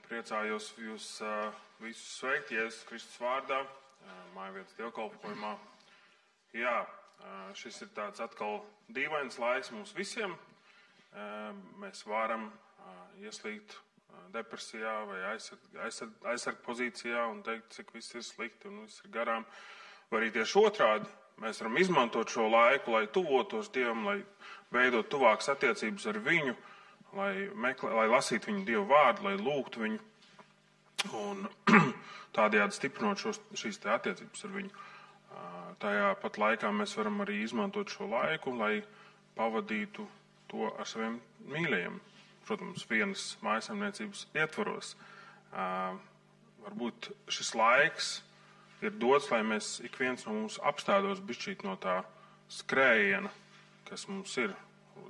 Priecājos jūs visus sveikt Jēzus Kristus vārdā, mājvietas dievkalpojumā. Jā, šis ir tāds atkal dīvains laiks mums visiem. Mēs varam ieslīgt depresijā vai aizsarg pozīcijā un teikt, cik viss ir slikti un viss ir garām. Vai arī tieši otrādi, mēs varam izmantot šo laiku, lai tuvotos Dievam, lai veidot tuvākas attiecības ar viņu, lai lasītu viņu Dievu vārdu, lai lūgtu viņu un tādējādi stiprinot šīs te attiecības ar viņu. Tajā pat laikā mēs varam arī izmantot šo laiku, lai pavadītu to ar saviem mīļajiem. Protams, vienas mājasemniecības ietvaros. Varbūt šis laiks ir dots, lai mēs ik viens no mums apstādos bišķīt no tā skrējiena, kas mums ir.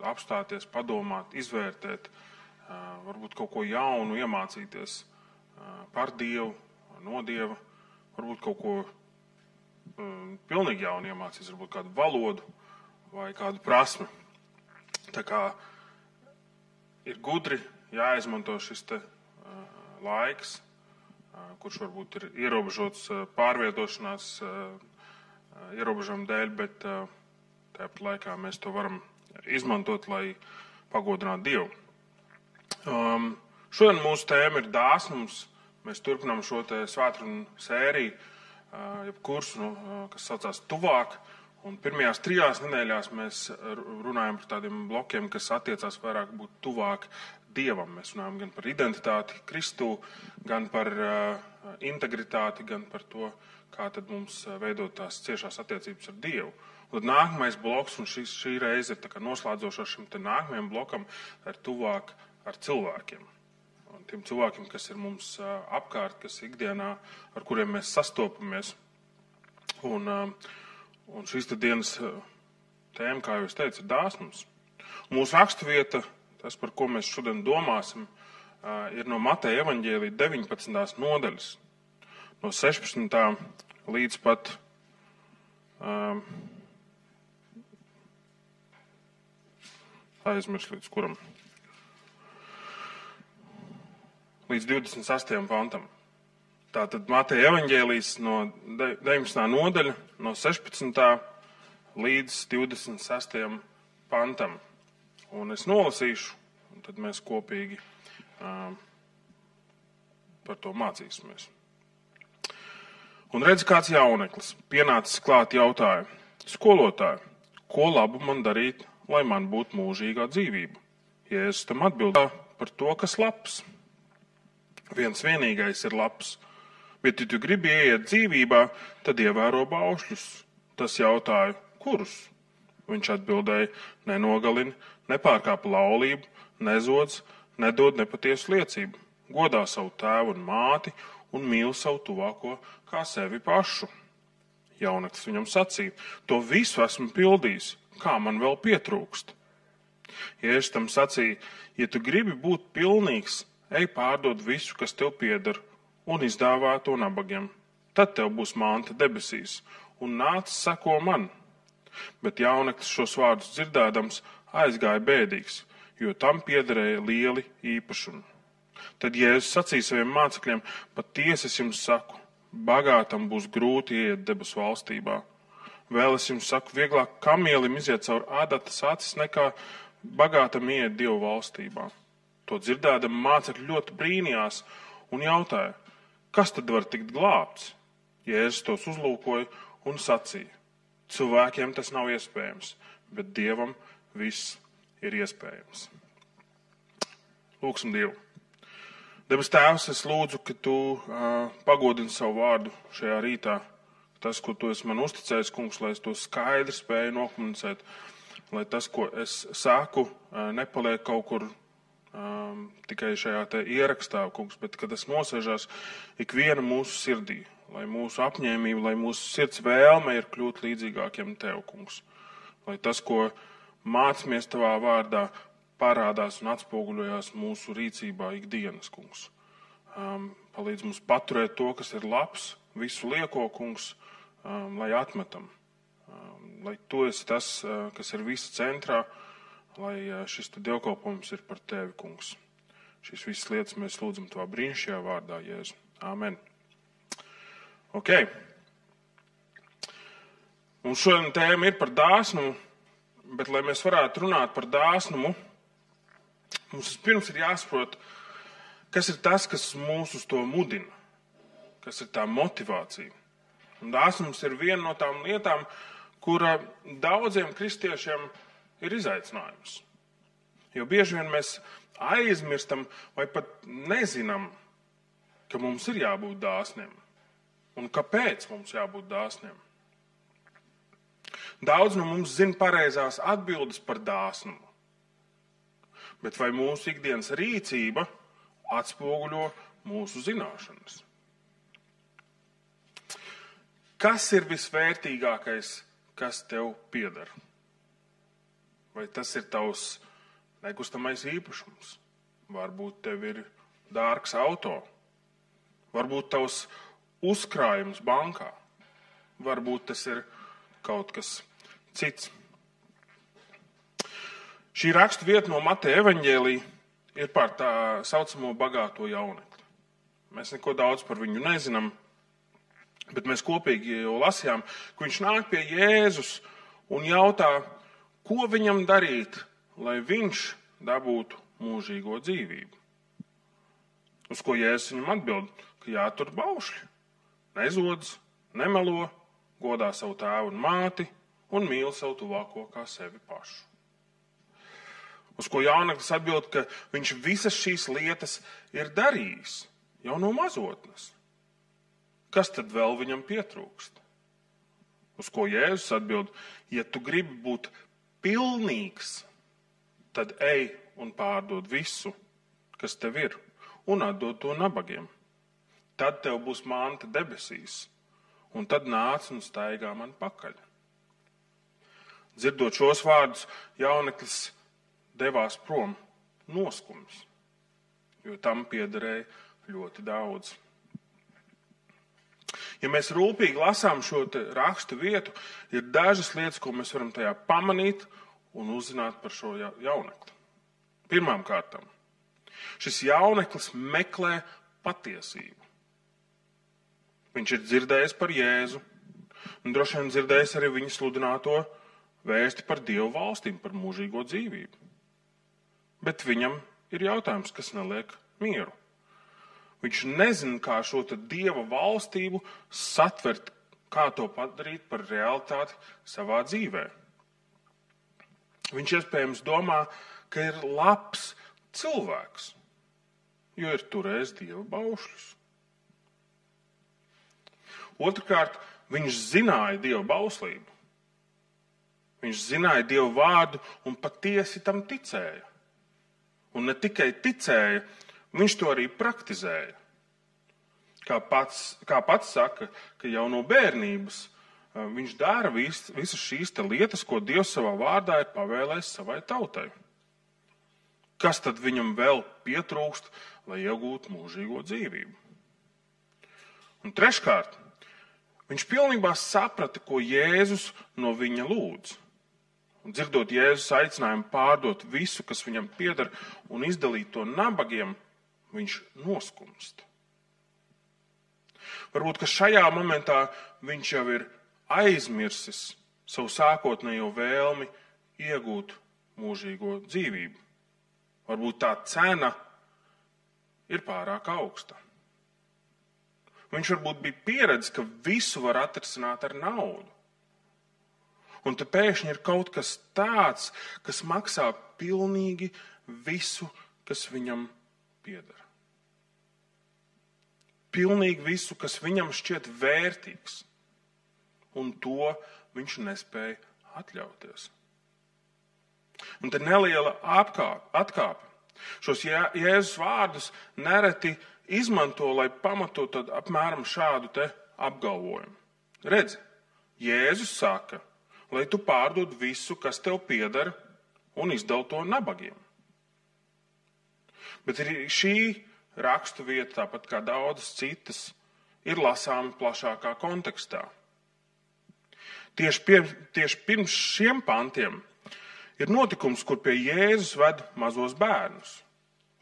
Apstāties, padomāt, izvērtēt, varbūt kaut ko jaunu iemācīties par Dievu, no Dieva, varbūt kaut ko pilnīgi jaunu iemācīties, varbūt kādu valodu vai kādu prasmi. Tā kā ir gudri jāizmanto šis te laiks, kurš varbūt ir ierobežots pārvietošanās ierobežojumu dēļ, bet tāpat laikā mēs to varam izmantot, lai pagodinātu Dievu. Šodien mūsu tēma ir dāsnums. Mēs turpinām šo te svētkrunu sēriju, jeb kursu, kas saucās Tuvāk. Un pirmajās 3 nedēļās mēs runājam par tādiem blokiem, kas attiecās vairāk būt tuvāk Dievam. Mēs runājam gan par identitāti Kristū, gan par integritāti, gan par to, kā tad mums veidot tās ciešās attiecības ar Dievu. Un tad nākamais bloks, un šī reize ir tā kā noslēdzošā šim te nākamajam blokam, ir tuvāk ar cilvēkiem. Un tiem cilvēkiem, kas ir mums apkārt, kas ikdienā, ar kuriem mēs sastopamies. Un šīs te dienas tēma, kā jau es teicu, ir dāsnums. Mūsu raksturvieta, tas, par ko mēs šodien domāsim, ir no Mateja evaņģēlija 19. nodaļas, no 16. līdz pat aizmirst līdz kuram? Līdz 28. pantam. Tātad Mateja evaņģēlijs no 19. nodaļa, no 16. līdz 26. pantam. Un es nolasīšu, un tad mēs kopīgi par to mācīsimies. Un redz, kāds jauneklis pienācis klāt jautāja: skolotāji, ko labu man darīt, lai man būtu mūžīgā dzīvība? Jēzus tam atbildēja: par to, kas labs. Viens vienīgais ir labs, bet, ja tu gribi ieiet dzīvībā, tad ievēro baušļus. Tas jautāja: kurus? Viņš atbildēja: nenogalini, nepārkāp laulību, nezodz, nedod nepatiesu liecību, godā savu tēvu un māti un mīl savu tuvāko kā sevi pašu. Jauneklis viņam sacīja: to visu esmu pildījis, kā man vēl pietrūkst? Jēzus tam sacīja: ja tu gribi būt pilnīgs, ej pārdod visu, kas tev pieder, un izdāvā to nabagiem. Tad tev būs manta debesīs, un nāc seko man. Bet jauneklis šos vārdus dzirdēdams aizgāja bēdīgs, jo tam piederēja lieli īpašumi. Tad Jēzus sacīja saviem mācekļiem: patiesi es jums saku, bagātam būs grūti ieiet debesu valstībā. Vēl es jums saku, vieglāk kamielim iziet caur ādatas acis, nekā bagātam ieiet Dievu valstībā. To dzirdēdam mācekļi ļoti brīnījās un jautāja: kas tad var tikt glābts? Jēzus tos uzlūkoja un sacīja: cilvēkiem tas nav iespējams, bet Dievam viss ir iespējams. Lūksim Dievu. Debes Tēvs, es lūdzu, ka tu pagodini savu vārdu šajā rītā. Tas, ko tu esi man uzticējis, kungs, lai es to skaidri spēju nokomunicēt, lai tas, ko es saku, nepaliek kaut kur tikai šajā te ierakstā, kungs, bet kad tas nosēžās ikviena mūsu sirdī, lai mūsu apņēmība, lai mūsu sirds vēlme ir kļūt līdzīgākiem tev, kungs. Lai tas, ko mācamies tavā vārdā, parādās un atspoguļojās mūsu rīcībā ikdienas, kungs. Palīdz mums paturēt to, kas ir labs, visu lieko, kungs, lai atmetam. Lai tu esi tas, kas ir visa centrā, lai šis dievkalpojums ir par tevi, kungs. Šīs visas lietas mēs lūdzam tavā brīnišķīgajā vārdā, Jēzu. Āmen. Ok. Mums šodien tēma ir par dāsnumu, bet, lai mēs varētu runāt par dāsnumu, mums pirms ir jāsaprot, kas ir tas, kas mūs uz to mudina, kas ir tā motivācija. Un dāsnums ir viena no tām lietām, kura daudziem kristiešiem ir izaicinājums. Jo bieži vien mēs aizmirstam vai pat nezinām, ka mums ir jābūt dāsniem. Un kāpēc mums jābūt dāsniem? Daudz no mums zina pareizās atbildes par dāsnumu. Bet vai mūsu ikdienas rīcība atspoguļo mūsu zināšanas? Kas ir visvērtīgākais, kas tev pieder? Vai tas ir tavs nekustamais īpašums? Varbūt tev ir dārgs auto. Varbūt tavs uzkrājums bankā. Varbūt tas ir kaut kas cits. Šī rakstu vieta no Mateja evaņģēlija ir par tā saucamo bagāto jaunekli. Mēs neko daudz par viņu nezinām, bet mēs kopīgi jau lasījām, ka viņš nāk pie Jēzus un jautā, ko viņam darīt, lai viņš dabūtu mūžīgo dzīvību. Uz ko Jēzus viņam atbild, ka jātur baušļi, nezodz, nemelo, godā savu tēvu un māti un mīl savu tuvāko kā sevi pašu. Uz ko jauneklis atbild, ka viņš visas šīs lietas ir darījis jau no mazotnes. Kas tad vēl viņam pietrūkst? Uz ko Jēzus atbild, ja tu gribi būt pilnīgs, tad ej un pārdod visu, kas tev ir, un atdod to nabagiem. Tad tev būs manta debesīs, un tad nāc un staigā man pakaļ. Dzirdot šos vārdus, jauneklis devās prom noskums, jo tam piederēja ļoti daudz. Ja mēs rūpīgi lasām šo rakstu vietu, ir dažas lietas, ko mēs varam tajā pamanīt un uzzināt par šo jaunekli. Pirmām kārtām, šis jauneklis meklē patiesību. Viņš ir dzirdējis par Jēzu, un droši vien dzirdējis arī viņa sludināto vēsti par Dievu valstīm, par mūžīgo dzīvību. Bet viņam ir jautājums, kas neliek mieru. Viņš nezina, kā šo Dieva valstību satvert, kā to padarīt par realitāti savā dzīvē. Viņš iespējams domā, ka ir labs cilvēks, jo ir turējis Dieva baušļus. Otrkārt, viņš zināja Dieva bauslību. Viņš zināja Dieva vārdu un patiesi tam ticēja. Un ne tikai ticēja, viņš to arī praktizēja. Kā pats saka, ka jau no bērnības viņš dara visas šīs lietas, ko Dievs savā vārdā ir pavēlējis savai tautai. Kas tad viņam vēl pietrūkst, lai iegūtu mūžīgo dzīvību? Un treškārt, viņš pilnībā saprata, ko Jēzus no viņa lūdz. Un dzirdot Jēzus aicinājumu pārdot visu, kas viņam pieder, un izdalīt to nabagiem, viņš noskumst. Varbūt, ka šajā momentā viņš jau ir aizmirsis savu sākotnējo vēlmi iegūt mūžīgo dzīvību. Varbūt tā cena ir pārāk augsta. Viņš varbūt bija pieredzis, ka visu var atrisināt ar naudu. Un te pēkšņi ir kaut kas tāds, kas maksā pilnīgi visu, kas viņam pieder. Pilnīgi visu, kas viņam šķiet vērtīgs. Un to viņš nespēja atļauties. Un te neliela atkāpe. Šos Jēzus vārdus nereti izmanto, lai pamatotu apmēram šādu te apgalvojumu. Redzi, Jēzus saka, lai tu pārdod visu, kas tev pieder, un izdal to nabagiem. Bet arī šī rakstu vieta, tāpat kā daudzas citas, ir lasāma plašākā kontekstā. Tieši pirms šiem pantiem ir notikums, kur pie Jēzus ved mazos bērnus.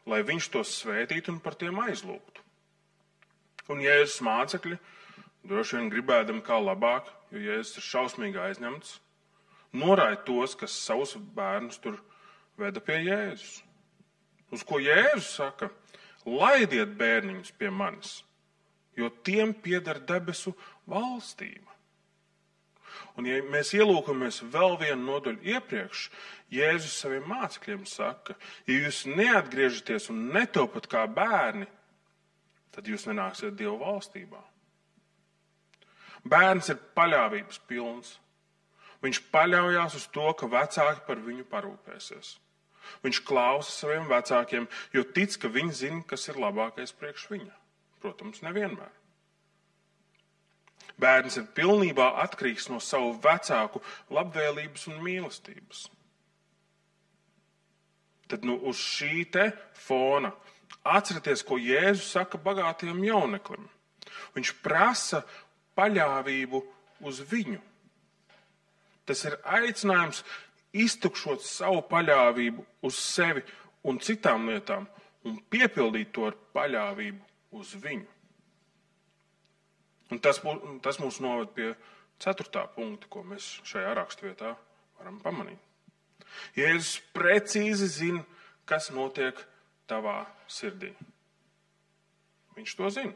lai viņš tos svētītu un par tiem aizlūgtu. Un Jēzus mācekļi, droši vien gribēdami kā labāk, jo Jēzus ir šausmīgi aizņemts, noraida tos, kas savus bērnus tur veda pie Jēzus. Uz ko Jēzus saka: laidiet bērniņus pie manis, jo tiem pieder debesu valstība. Un ja mēs ielūkamies vēl vienu nodaļu iepriekš, Jēzus saviem mācekļiem saka: ja jūs neatgriežaties un netopat kā bērni, tad jūs nenāksiet Dieva valstībā. Bērns ir paļāvības pilns. Viņš paļaujās uz to, ka vecāki par viņu parūpēsies. Viņš klausa saviem vecākiem, jo tic, ka viņi zina, kas ir labākais priekš viņa. Protams, nevienmēr. Bērns ir pilnībā atkarīgs no savu vecāku labvēlības un mīlestības. Tad uz šī te fona atcerieties, ko Jēzus saka bagātajam jauneklim. Viņš prasa paļāvību uz viņu. Tas ir aicinājums iztukšot savu paļāvību uz sevi un citām lietām un piepildīt to ar paļāvību uz viņu. Un tas mūs noved pie 4. punkta, ko mēs šajā raksturvietā varam pamanīt. Jēzus precīzi zina, kas notiek tavā sirdī. Viņš to zina.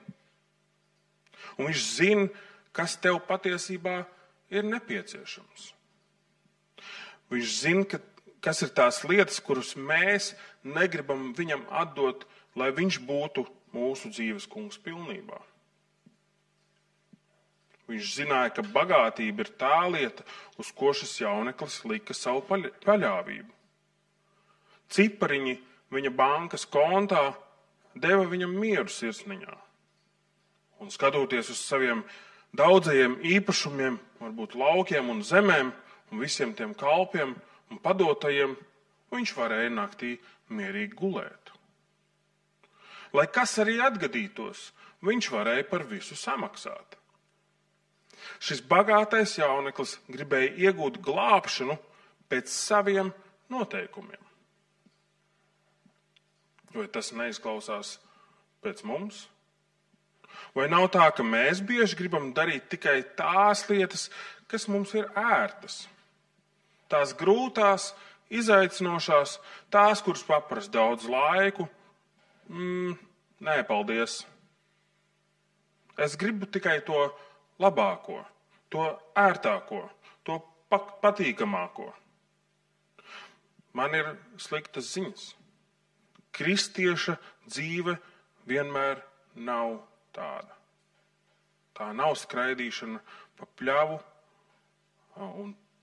Un viņš zina, kas tev patiesībā ir nepieciešams. Viņš zina, kas ir tās lietas, kuras mēs negribam viņam atdot, lai viņš būtu mūsu dzīves kungs pilnībā. Viņš zināja, ka bagātība ir tā lieta, uz ko šis jauneklis lika savu paļāvību. Cipariņi viņa bankas kontā deva viņam mieru sirsniņā. Un skatoties uz saviem daudzajiem īpašumiem, varbūt laukiem un zemēm, un visiem tiem kalpiem un padotajiem, viņš varēja naktī mierīgi gulēt. Lai kas arī atgadītos, viņš varēja par visu samaksāt. Šis bagātais jauneklis gribēja iegūt glābšanu pēc saviem noteikumiem. Vai tas neizklausās pēc mums? Vai nav tā, ka mēs bieži gribam darīt tikai tās lietas, kas mums ir ērtas? Tās grūtās, izaicinošās, tās, kuras paprasa daudz laiku. Nē, paldies. Es gribu tikai to labāko, to ērtāko, to patīkamāko. Man ir sliktas ziņas. Kristieša dzīve vienmēr nav tāda. Tā nav skraidīšana pa pļavu,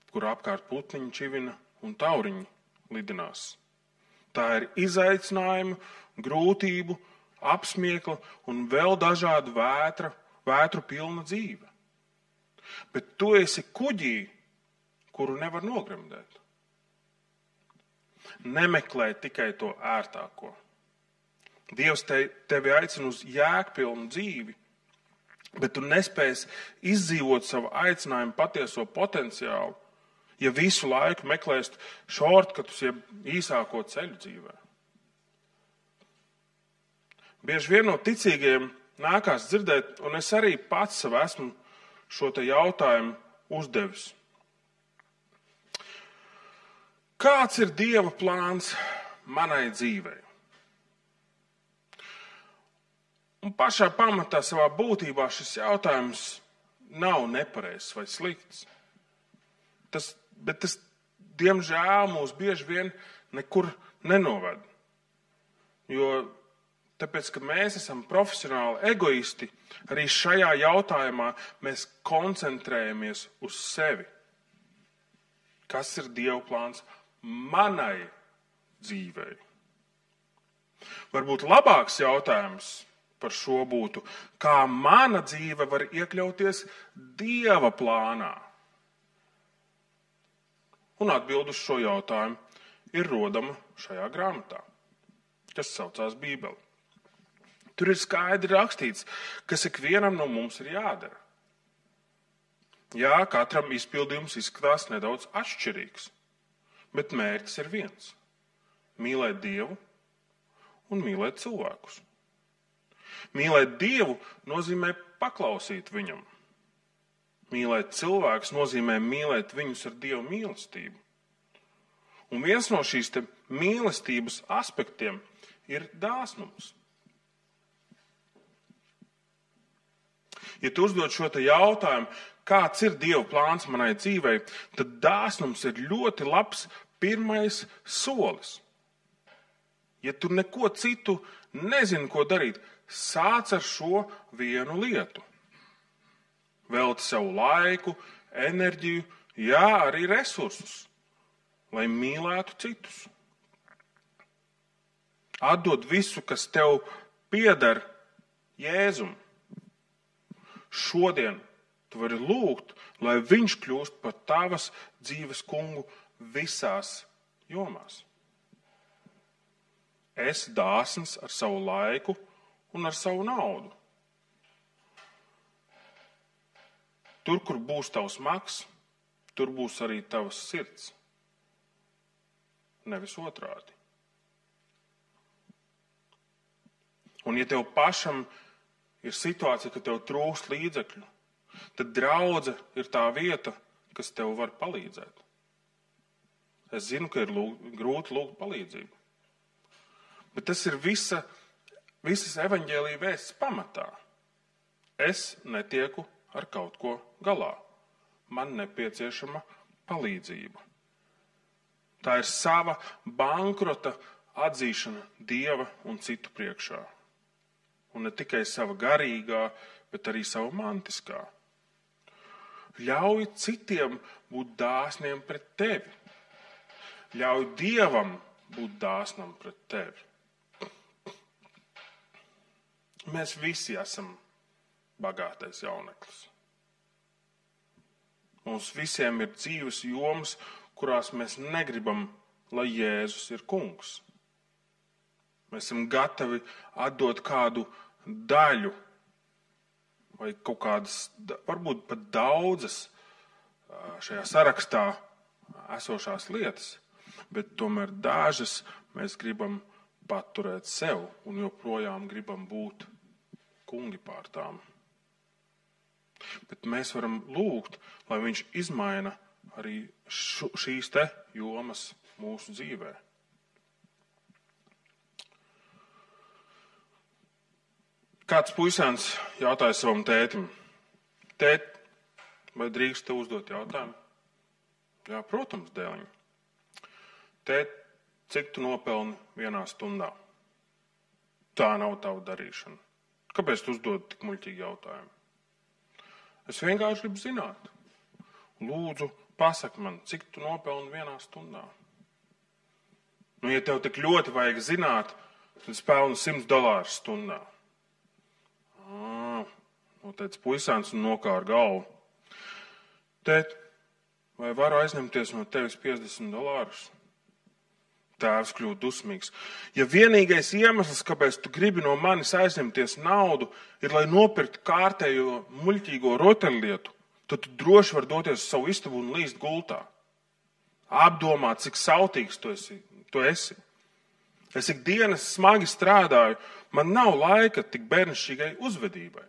kur apkārt putniņi čivina un tauriņi lidinās. Tā ir izaicinājuma, grūtību, apsmiekla un vēl dažādu vētru pilna dzīve. Bet tu esi kuģī, kuru nevar nogremdēt. Nemeklē tikai to ērtāko. Dievs tevi aicina uz jēgpilnu dzīvi, bet tu nespēsi izdzīvot savu aicinājumu patieso potenciālu, ja visu laiku meklēst šortkatus, jeb īsāko ceļu dzīvē. Bieži vien no ticīgajiem nākās dzirdēt, un es arī pats sev esmu šo te jautājumu uzdevis. Kāds ir Dieva plāns manai dzīvei? Un pašā pamatā savā būtībā šis jautājums nav nepareizs vai slikts. Bet tas, diemžēl, mūs bieži vien nekur nenoved. Tāpēc, ka mēs esam profesionāli egoisti, arī šajā jautājumā mēs koncentrējamies uz sevi. Kas ir Dieva plāns manai dzīvei? Varbūt labāks jautājums par šo būtu, kā mana dzīve var iekļauties Dieva plānā? Un atbilde uz šo jautājumu ir rodama šajā grāmatā, kas saucās Bībele. Tur ir skaidri rakstīts, kas ikvienam no mums ir jādara. Jā, katram izpildījums izskatās nedaudz atšķirīgs, bet mērķis ir viens – mīlēt Dievu un mīlēt cilvēkus. Mīlēt Dievu nozīmē paklausīt viņam. Mīlēt cilvēkus nozīmē mīlēt viņus ar Dieva mīlestību. Un viens no šīs mīlestības aspektiem ir dāsnums. Ja tu uzdod šo jautājumu, kāds ir Dieva plāns manai dzīvei, tad dāsnums ir ļoti labs pirmais solis. Ja tu neko citu nezini, ko darīt, sāc ar šo vienu lietu. Velti savu laiku, enerģiju, arī resursus, lai mīlētu citus. Atdod visu, kas tev pieder Jēzum. Šodien tu vari lūgt, lai viņš kļūst par tavas dzīves kungu visās jomās. Esi dāsns ar savu laiku un ar savu naudu. Tur, kur būs tavs maks, tur būs arī tavas sirds. Nevis otrādi. Un ja tev pašam ir situācija, ka tev trūkst līdzekļu, tad draudze ir tā vieta, kas tev var palīdzēt. Es zinu, ka ir grūti lūgt palīdzību. Bet tas ir visas evaņģēlija vēsts pamatā. Es netieku ar kaut ko galā. Man nepieciešama palīdzība. Tā ir sava bankrota atzīšana Dieva un citu priekšā. Un ne tikai sava garīgā, bet arī sava mantiskā. Ļauj citiem būt dāsniem pret tevi. Ļauj Dievam būt dāsnam pret tevi. Mēs visi esam bagātais jauneklis. Mums visiem ir dzīves jomas, kurās mēs negribam, lai Jēzus ir kungs. Mēs esam gatavi atdot kādu daļu vai kaut kādas, varbūt pat daudzas šajā sarakstā esošās lietas, bet tomēr dažas mēs gribam paturēt sev un joprojām gribam būt kungi pār tām. Bet mēs varam lūgt, lai viņš izmaina arī šīs jomas mūsu dzīvē. Kāds puisēns jautāja savam tētim: Tēt, vai drīkst tev uzdot jautājumu? Jā, protams, dēliņ. Tēt, cik tu nopelni vienā stundā? Tā nav tava darīšana. Kāpēc tu uzdod tik muļķīgi jautājumu? Es vienkārši gribu zināt. Lūdzu, pasaki man, cik tu nopelni vienā stundā? Nu, ja tev tik ļoti vajag zināt, tad es pelnu $100 stundā. Noteica puisēns un nokāra galvu. Tēt, vai varu aizņemties no tevis $50? Tēvs kļūst dusmīgs. Ja vienīgais iemesls, kāpēc tu gribi no manis aizņemties naudu, ir, lai nopirktu kārtējo muļķīgo rotaļlietu, tad tu droši vari doties uz savu istabu un līst gultā. Apdomā, cik sautīgs tu esi. Es ikdienas smagi strādāju, man nav laika tik bērnišķīgai uzvedībai.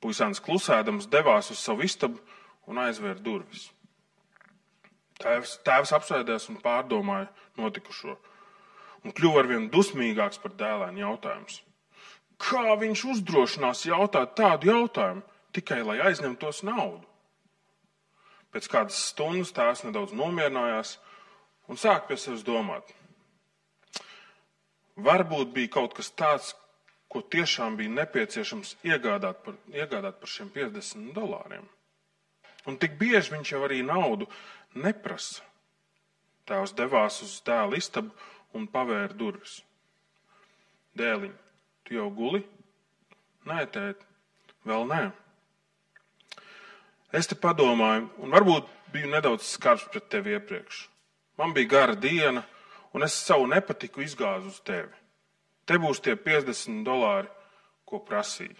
Puisēns klusēdams devās uz savu istabu un aizvēra durvis. Tēvs apsēdās un pārdomāja notikušo un kļuva arvien dusmīgāks par dēlēnu jautājumus. Kā viņš uzdrošinās jautāt tādu jautājumu, tikai lai aizņemtos naudu? Pēc kādas stundas tēvs nedaudz nomierinājās un sāk pie sevis domāt. Varbūt bija kaut kas tāds, ko tiešām bija nepieciešams iegādāt par šiem $50. Un tik bieži viņš jau arī naudu neprasa. Tēvs devās uz dēla istabu un pavēra durvis. Dēliņ, tu jau guli? Nē, tēt, vēl nē. Es te padomāju, un varbūt biju nedaudz skarbs pret tevi iepriekš. Man bija gara diena, un es savu nepatiku izgāzu uz tevi. Te būs tie $50, ko prasīja.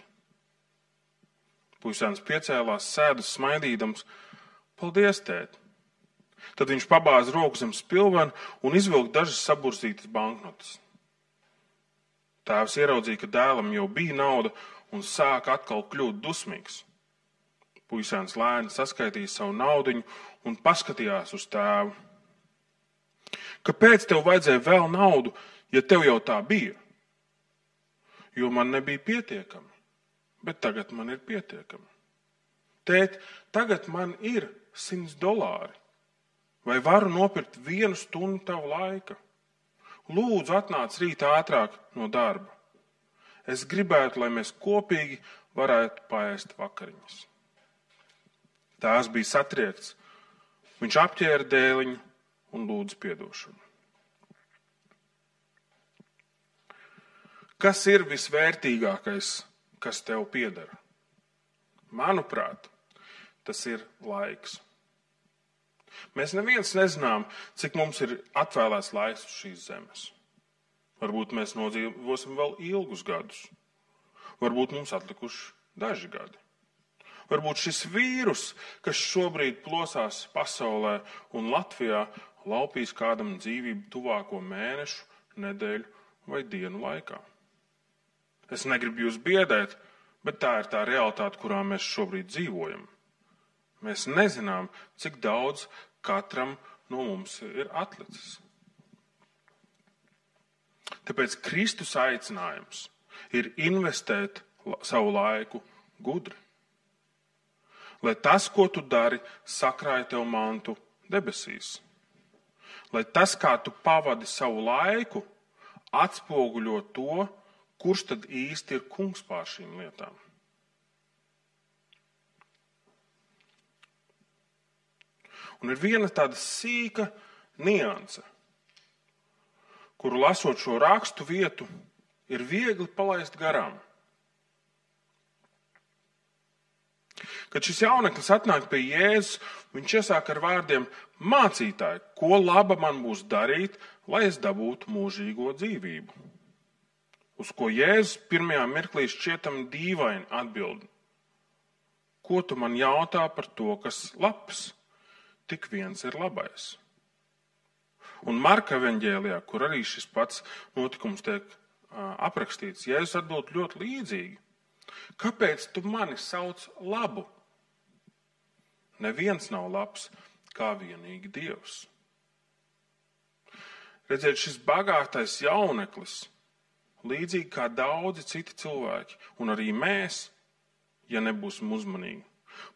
Puisēns piecēlās, sēdus smaidīdams. Paldies, tēt. Tad viņš pabāza roku zem spilvena un izvilka dažas saburzītas banknotes. Tēvs ieraudzīja, ka dēlam jau bija nauda un sāka atkal kļūt dusmīgs. Puisēns lēni saskaitīja savu naudiņu un paskatījās uz tēvu. Kāpēc tev vajadzēja vēl naudu, ja tev jau tā bija? Jo man nebija pietiekami, bet tagad man ir pietiekami. Tēt, tagad man ir $100. Vai varu nopirkt 1 stundu tavu laika? Lūdzu, atnāc rīt ātrāk no darba. Es gribētu, lai mēs kopīgi varētu paēst vakariņas. Tēvs bija satriekts. Viņš apķēra dēliņu un lūdza piedošanu. Kas ir visvērtīgākais, kas tev pieder? Manuprāt, tas ir laiks. Mēs neviens nezinām, cik mums ir atvēlēts laiks uz šīs zemes. Varbūt mēs nodzīvosim vēl ilgus gadus. Varbūt mums atlikuši daži gadi. Varbūt šis vīrus, kas šobrīd plosās pasaulē un Latvijā, laupīs kādam dzīvību tuvāko mēnešu, nedēļu vai dienu laikā. Es negribu jūs biedēt, bet tā ir tā realitāte, kurā mēs šobrīd dzīvojam. Mēs nezinām, cik daudz katram no mums ir atlicis. Tāpēc Kristus aicinājums ir investēt savu laiku gudri. Lai tas, ko tu dari, sakrāja tev mantu debesīs. Lai tas, kā tu pavadi savu laiku, atspoguļo to, kurš tad īsti ir kungs pār šīm lietām. Un ir viena tāda sīka nianse, kuru lasot šo rakstu vietu, ir viegli palaist garām. Kad šis jauneklis atnāk pie Jēzus, viņš iesāk ar vārdiem: mācītāji, ko laba man būs darīt, lai es dabūtu mūžīgo dzīvību? Uz ko Jēzus pirmajā mirklī šķietam dīvaini atbild: ko tu man jautā par to, kas labs? Tik viens ir labais. Un Marka evaņģēlijā, kur arī šis pats notikums tiek aprakstīts, Jēzus atbild ļoti līdzīgi. Kāpēc tu mani sauc labu? Neviens nav labs kā vienīgi Dievs. Redziet, šis bagātais jauneklis, līdzīgi kā daudzi citi cilvēki, un arī mēs, ja nebūsim uzmanīgi,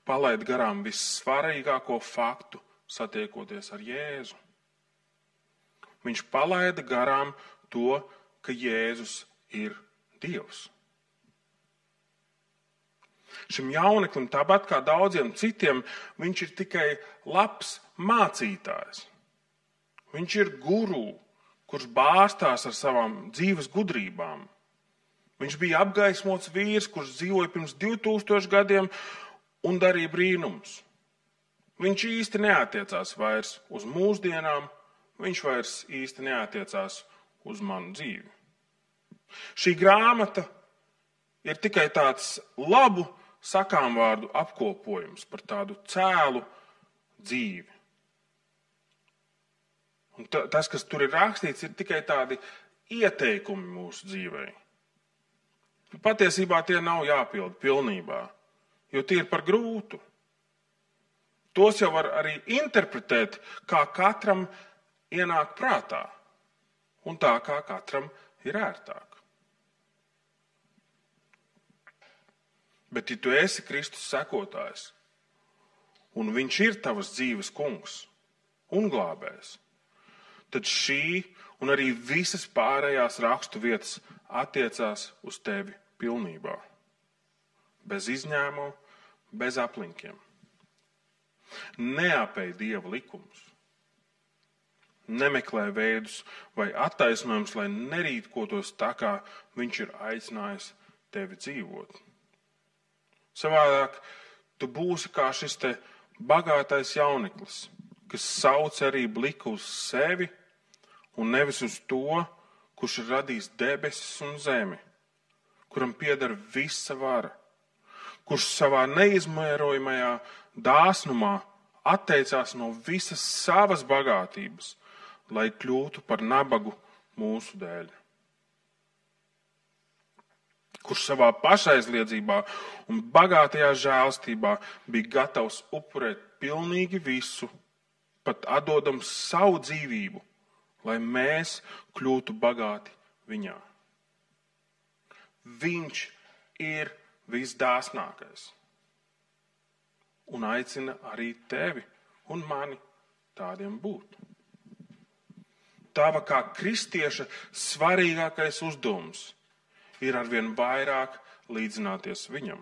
palaid garām vissvarīgāko faktu, satiekoties ar Jēzu. Viņš palaida garām to, ka Jēzus ir Dievs. Šim jauneklim, tāpat kā daudziem citiem, viņš ir tikai labs mācītājs. Viņš ir guru, kurš bārstās ar savām dzīves gudrībām. Viņš bija apgaismots vīrs, kurš dzīvoja pirms 2000 gadiem un darīja brīnumus. Viņš īsti neatiecās vairs uz mūsdienām, viņš vairs īsti neatiecās uz manu dzīvi. Šī grāmata ir tikai tāds labu sakāmvārdu apkopojums par tādu cēlu dzīvi. Un tas, kas tur ir rakstīts, ir tikai tādi ieteikumi mūsu dzīvei. Patiesībā tie nav jāpilda pilnībā, jo tie ir par grūtu. Tos jau var arī interpretēt, kā katram ienāk prātā un tā, kā katram ir ērtāk. Bet, ja tu esi Kristus sekotājs, un viņš ir tavas dzīves kungs un glābējs, tad šī un arī visas pārējās rakstu vietas attiecās uz tevi pilnībā. Bez izņēmumu, bez aplinkiem. Neapēj Dieva likumus. Nemeklē veidus vai attaisnojumus, lai nerīkotos tā, kā viņš ir aicinājis tevi dzīvot. Savādāk tu būsi kā šis te bagātais jauneklis, kas sauc arī bliku uz sevi un nevis uz to, kurš ir radījis debesis un zemi, kuram pieder visa vara, kurš savā neizmērojamajā dāsnumā atteicās no visas savas bagātības, lai kļūtu par nabagu mūsu dēļ. Kurš savā pašaizliedzībā un bagātajā žēlstībā bija gatavs upurēt pilnīgi visu, pat atdodams savu dzīvību, lai mēs kļūtu bagāti viņā. Viņš ir visdāsnākais un aicina arī tevi un mani tādiem būt. Tava kā kristieša svarīgākais uzdevums ir arvien vairāk līdzināties viņam.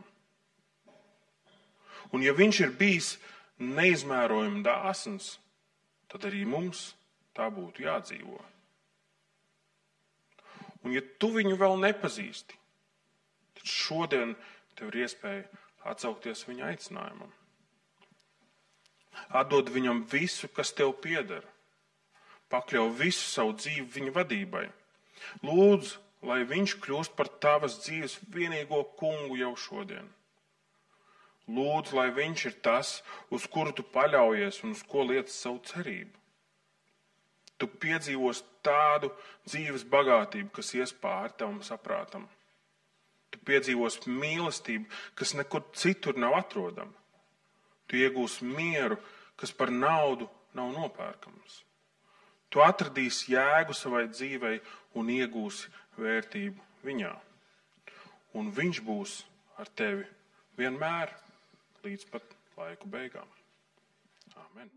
Un ja viņš ir bijis neizmērojami dāsns, tad arī mums tā būtu jādzīvo. Un ja tu viņu vēl nepazīsti, tad šodien tev ir iespēja atsaukties viņa aicinājumam. Atdod viņam visu, kas tev pieder. Pakļauj visu savu dzīvi viņa vadībai. Lūdzu, lai viņš kļūst par tavas dzīves vienīgo kungu jau šodien. Lūdzu, lai viņš ir tas, uz kuru tu paļaujies un uz ko liec savu cerību. Tu piedzīvos tādu dzīves bagātību, kas ies pāri tavam saprātam. Tu piedzīvos mīlestību, kas nekur citur nav atrodama. Tu iegūsi mieru, kas par naudu nav nopērkams. Tu atradīsi jēgu savai dzīvei un iegūsi vērtību viņā. Un viņš būs ar tevi vienmēr līdz pat laiku beigām. Āmen.